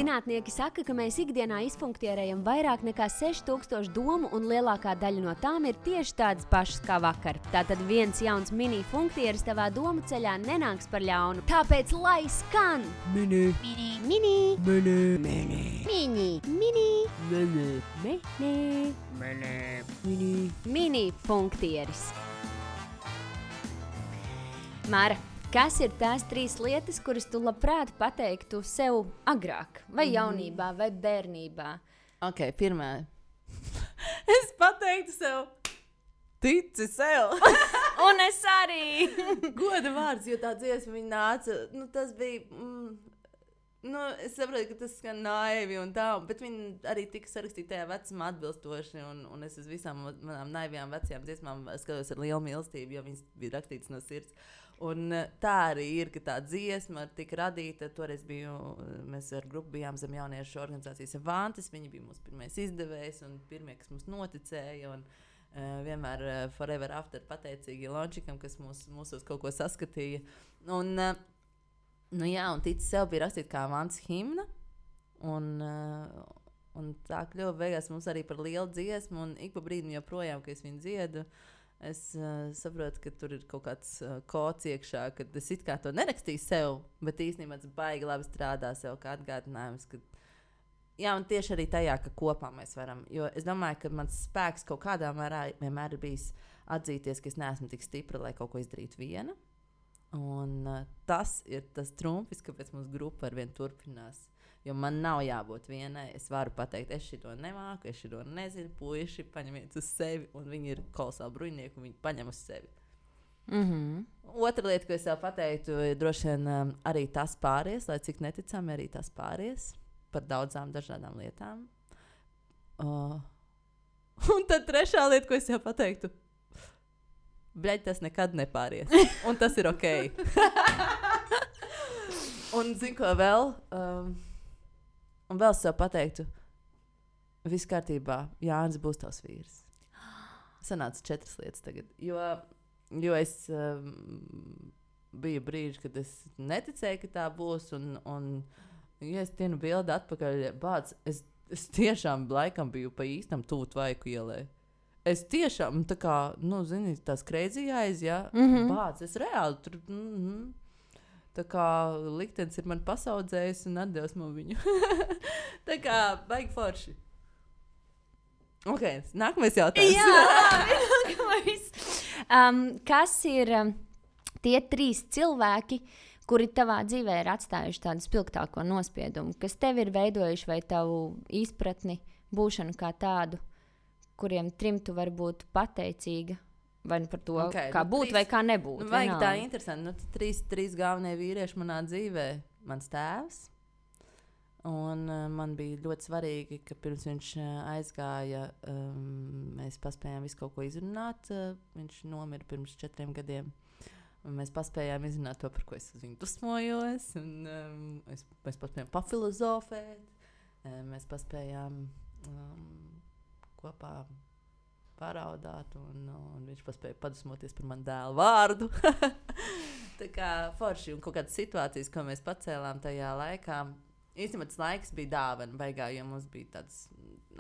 Zinātnieki saka, ka mēs ikdienā izfunktierējam vairāk nekā 6000 domu, un lielākā daļa no tām ir tieši tādas pašas kā vakar. Tātad viens jauns mini funktieris tavā domu ceļā nenāks par ļaunu. Tāpēc lai skan! Mini. Mini, mini, Mini. Mini. mini, mini, Mini. mini, Mini. Mini. mini funktieris. Māra, kas ir tās 3 lietas, kuras tu labprāt pateiktu sev agrāk? Vai jaunībā, vai bērnībā? Ok, pirmā. Es pateiktu sev, tici sev. Un es arī! Goda vārds, jo tā dziesma viņa nāca. Nu, tas bija. Es saprotu, ka tas skan naivi un tā, bet viņa arī tika sarakstīta tajā vecumā atbilstoši. Un es uz visām manām naivajām vecajām dziesmām skatos ar lielu mīlestību, jo viņas bija rakstītas no sirds. Un tā arī ir, ka tā dziesma tika radīta. Toreiz mēs ar grupu bijām zem jauniešu organizācijas Avantis. Viņi bija mūsu pirmais izdevējs un pirmie, kas mums noticēja. Un vienmēr forever after pateicīgi Lončikam, kas mūsos kaut ko saskatīja. Un un tici sev bija rakstīt kā Avantis himna. Un tā kļuva beigās mums arī par lielu dziesmu. Un ik pa brīdim joprojām, kad es viņu dziedu, es saprotu, ka tur ir kaut kāds kods iekšā, kad es it kā to nerakstīju sev, bet īstenībā tas baigi labi strādā sev kā atgādinājums. Un tieši arī tajā, ka kopā mēs varam. Jo es domāju, ka mans spēks kaut kādā mērā vienmēr ir bijis atzīties, ka es neesmu tik stipra, lai kaut ko izdarītu viena. Un tas ir tas trumpis, kāpēc mūsu grupa arvien turpinās. Jo man nav jābūt vienai. Es varu pateikt, es šito nemāku, es šito nezinu. Puiši, paņemiet uz sevi. Un viņi ir kolosāli bruņinieki, un viņi paņem uz sevi. Otra lieta, ko es jau pateiktu, ir droši vien arī tas pāries, lai cik neticami arī tas pāries par daudzām dažādām lietām. Un tad trešā lieta, ko es jau pateiktu, bļaļ, tas nekad nepāries. Un tas ir ok. Un zinu, ko vēl? Un vēl es sev pateiktu, viss kārtībā, Jānis būs tavs vīrs. Sanāca 4 lietas tagad. Jo es biju brīži, kad es neticēju, ka tā būs. Un ja es tienu bildi atpakaļ, bāc, es tiešām laikam biju pa īstam tuvu Tvaiku ielai. Es tiešām, tā kā, zini, tās crazy eyes, ja? Bāc, es reāli tur, tā kā liktenis ir man pasaudzējis un atdevis man viņu. Tā kā, baigi forši. Ok, nākamais jautājums. Jā, nākamais. Kas ir tie 3 cilvēki, kuri tavā dzīvē ir atstājuši tādu spilgtāko nospiedumu, kas tev ir veidojuši vai tavu izpratni, būšanu kā tādu, kuriem 3 tu var būt pateicīga, vai par to, kā būt vai kā nebūt. Vajag tā interesanti. 3 galvenie vīrieši manā dzīvē. Mans tēvs. Un man bija ļoti svarīgi, ka pirms viņš aizgāja, mēs paspējām visu kaut ko izrunāt. Viņš nomira pirms 4 gadiem. Un mēs paspējām izrunāt to, par ko es uz viņu dusmojos. Un, mēs paspējām pafilozofēt. Mēs paspējām kopā paraudāt. Un viņš paspēja padusmoties par manu dēlu vārdu. Tā kā forši un kaut kādas situācijas, ko mēs pacēlām tajā laikā. Īstenībā tas laiks bija dāvana beigā, jo mums bija tāds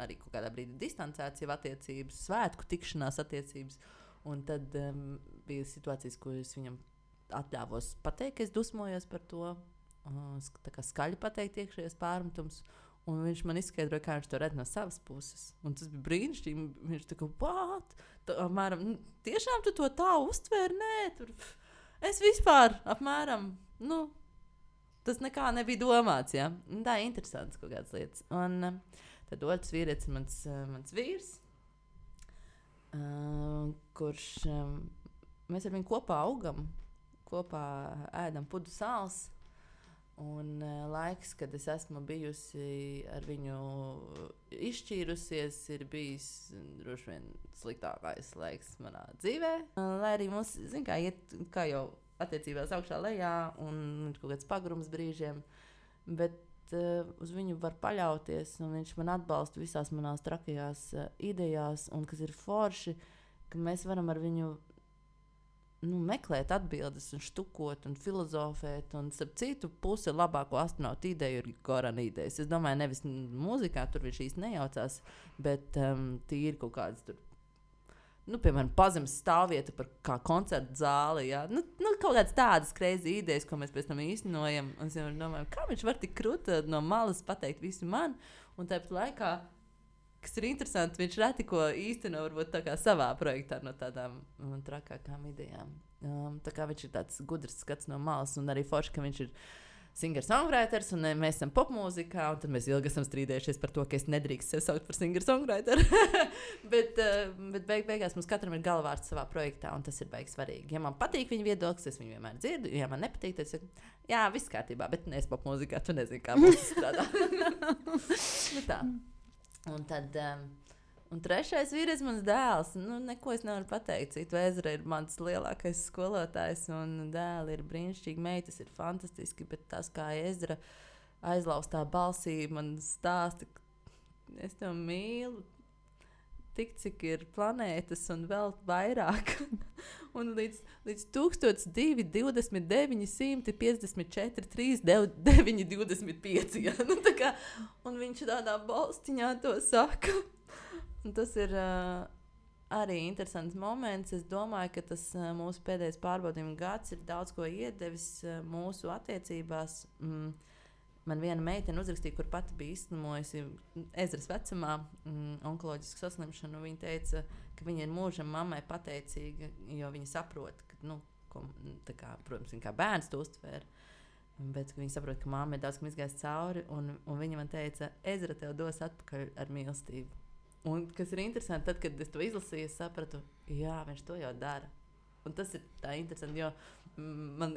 arī kaut kādā brīdī distancēts jau attiecības, svētku tikšanās attiecības. Un tad bija situācijas, ko es viņam atļāvos pateikt, ka es dusmojos par to. Tā kā skaļi pateikt iekšējos pārmetums. Un viņš man izskaidroja, kā viņš to redz no savas puses. Un tas bija brīnišķīgi. Viņš tā kā, what? Apmēram, tiešām tu to tā uztvēri? Nē, tur es vispār apmēram, tas nekā nebija domāts, ja? Tā ir interesants kaut kādas lietas. Un tad otrs vīrietis ir mans vīrs, kurš mēs ar viņu kopā augam, kopā ēdam pudu sāls. Un laiks, kad es esmu bijusi ar viņu izšķīrusies, ir bijis droši vien sliktākais laiks manā dzīvē. Lai arī mums, zin kā, iet kā jau attiecībās augšā lejā un kaut kāds pagrums brīžiem, bet uz viņu var paļauties un viņš man atbalsta visās manās trakajās idejās un kas ir forši, ka mēs varam ar viņu meklēt atbildes un štukot un filozofēt. Un, starp citu, puse labāko astronautu ideju ir Gorana idejas. Es domāju, nevis mūzikā tur viņš īsti nejaucās, bet tīri kaut kādas tur, piemēram, pazemes stāvvieta par kā koncertu zāli. Ja? Kaut kādas tādas crazy idejas, ko mēs pēc tam īstenojam. Un es domāju, kā viņš var tik krūti no malas pateikt visu man, un tāpat laikā, kas ir interesanti, viņš reti ko īsteno varbūt tā kā savā projektā no tādām trakākām idejām. Tā kā viņš ir tāds gudrs skats no malas, un arī forši, ka viņš ir singer-songwriters, un mēs esam popmūzikā, un tad mēs ilgi esam strīdējušies par to, ka es nedrīkst sev saukt par singer-songwriteru. bet beigās mums katram ir galvārds savā projektā, un tas ir baigi svarīgi. Ja man patīk viņa viedoklis, es viņu vienmēr dzirdu, ja man nepatīk, tad es saku, jā, viss kārtībā, bet es popmūzikā, tu nezini, kā mums strādā. Tā. Un tad, un trešais vīrietis mans dēls. Neko es nevaru pateikt. Citu Ezra ir mans lielākais skolotājs, un dēli ir brīnišķīgi, meitas ir fantastiski, bet tas, kā Ezra aizlaustā balsī, man stāsta, es tev mīlu, tik cik ir planētas un vēl vairāk. Un līdz 1229, 954, 3, 925. Ja? Un viņš tādā balstiņā to saka. Un tas ir arī interesants moments. Es domāju, ka tas mūsu pēdējais pārbaudījuma gads ir daudz ko iedevis mūsu attiecībās. Man viena meitene uzrakstīja, kur pati bija izslimojusi Ezras vecumā onkoloģisku saslimšanu. Viņa teica, ka viņa ir mūžam mammai pateicīga, jo viņa saprot, ka, protams, viņa kā bērns to uztvēra, bet viņa saprot, ka mamma ir daudz kam izgājis cauri, un viņa man teica, Ezra tev dos atpakaļ ar mīlestību. Un kas ir interesanti, tad, kad es to izlasīju, es sapratu, jā, viņš to jau dara. Un tas ir tā interesanti, jo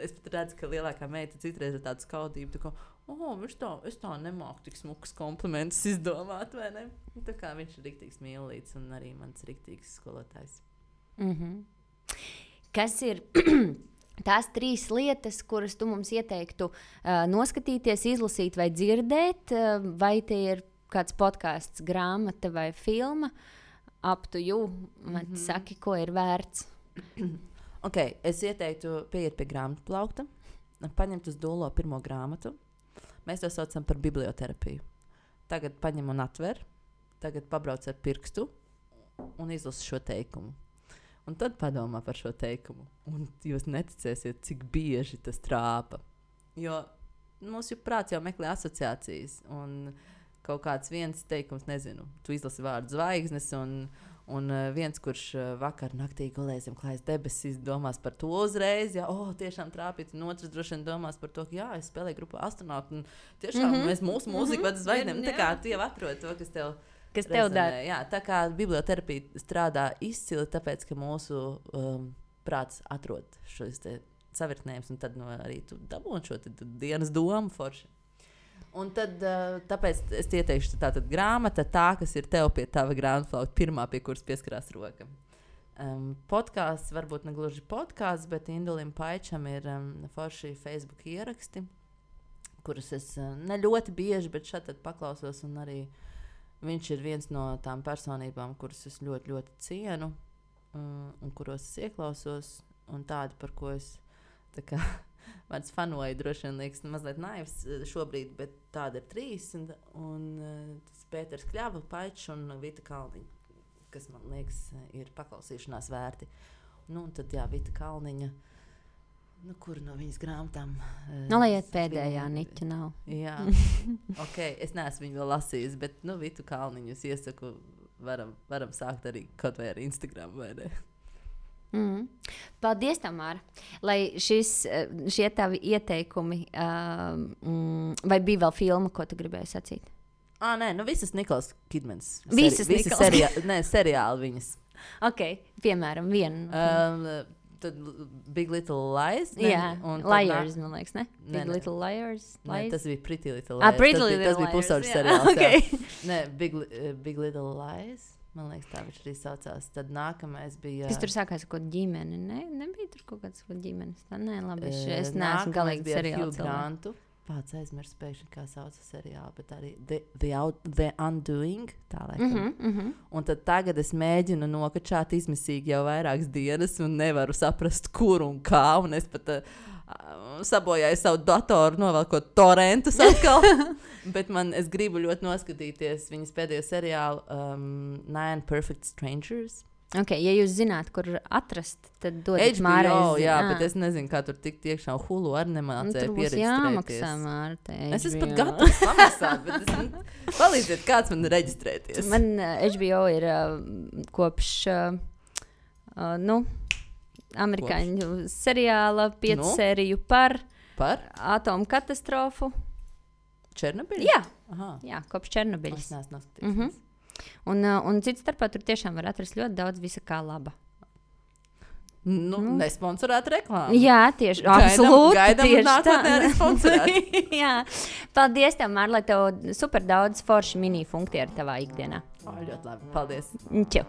es pat redzu, ka lielākā meita citreiz ir tāda skaudība, tā kā, es tā nemāku tik smukas komplimentus izdomāt, vai ne? Tā kā viņš ir riktīgs mīlīts un arī mans riktīgs skolotājs. Kas ir tās 3 lietas, kuras tu mums ieteiktu noskatīties, izlasīt vai dzirdēt, vai tie ir kāds podcasts, grāmata vai filma? Up to you, saki, ko ir vērts. Es ieteiktu pieiet pie grāmatu plaukta, paņemt uz dūlo pirmo grāmatu. Mēs to saucam par biblioterapiju. Tagad paņem un atver, tagad pabrauc ar pirkstu un izlasi šo teikumu. Un tad padomā par šo teikumu. Un jūs neticēsiet, cik bieži tas trāpa. Jo mūsu prāts jau meklē asociācijas. Un kaut kāds viens teikums, nezinu, tu izlasi vārdu zvaigznes un viens, kurš vakar naktī gulēja zem klājas debesis, domās par to uzreiz, tiešām trāpīt, un otrs droši vien domās par to, ka es spēlēju grupā astronautu, un tiešām mēs mūsu mūziku vada zvaigznēm. Tā kā tu jau atrodi to, kas tev dara. Jā, tā kā biblioterapija strādā izcili, tāpēc, ka mūsu prāts atrod šos te savirknējumus, un tad arī tu dabūni šo dienas domu forši. Un tad, tāpēc es ieteikšu tātad grāmata, kas ir tev pie tava grāmatplauka, pirmā, pie kuras pieskarās roka. Podkāsts, varbūt ne gluži podkāsts, bet Indulim Paičam ir forši Facebook ieraksti, kurus es ne ļoti bieži, bet šeit paklausos, un arī viņš ir viens no tām personībām, kuras es ļoti, ļoti cienu, un kuros es ieklausos, un tādi, par ko es tā kā vārds fanoju, droši vien liekas mazliet naivs šobrīd, bet tāda ir 3, un tas Pēters Kļava, Paičs un Vita Kalniņa, kas man liekas ir paklausīšanās vērti. Un tad, Vita Kalniņa, kuru no viņas grāmatām? Lai pēdējā niķa nav. Jā, es neesmu viņu vēl lasījis, bet, Vitu Kalniņu es iesaku, varam sākt arī kaut vai ar Instagram, vai ne? Paldies, Tamāra. Lai šie tavi ieteikumi, vai bija vēl filma, ko tu gribēji sacīt? Nē, visas Nikolas Kidmans. Visas seriāli viņas. Piemēram, vienu. Tad Big Little Lies. Liars, man liekas, ne? Big Little Liars. Tas bija Pretty Little Lies. Pretty Little Lies. Tas bija pusauģis seriāls. Nē, Big Little Lies. Man liekas, tā viņš arī saucās. Tad nākamais bija... Kas tur sākās ar kaut ģimeni? Nebija tur kaut kāds ģimenes? Nē, labi, es neesmu galīgi seriāls. Hugh Grantu Pats aizmirst pēkšņi, kā sauc seriālu, bet arī The Undoing, tā laikam. Un tad tagad es mēģinu nokačāt izmisīgi jau vairākas dienas un nevaru saprast, kur un kā, un es pat sabojāju savu datoru, novelkot torrentus atkal. Bet es gribu ļoti noskatīties viņas pēdējo seriālu Nine Perfect Strangers. Okay, ja jūs zināt, kur atrast, tad dodiet Mārai. Jā, bet es nezinu, kā tur tikt iekšā. Hulu arī nemācēja pieregistrēties. Jāmaksā, Mārta. Es esmu pat gatavs samaksāt, bet palīdziet, kāds man reģistrēties. Man HBO ir kopš, amerikāņu seriāla 5 sēriju par atomu katastrofu. Černobiļu? Jā, kopš Černobiļas. Es neesmu noskatījusies. Un cits starpā tur tiešām var atrast ļoti daudz visa kā laba. Nesponsorēta reklāma. Jā, tieši absolūti. Gaidām nākotnē arī sponsorēt. Jā. Paldies tev, Mār, lai tev super daudz forši mini funkti ar tavā ikdienā. Ļoti labi. Paldies. Čau.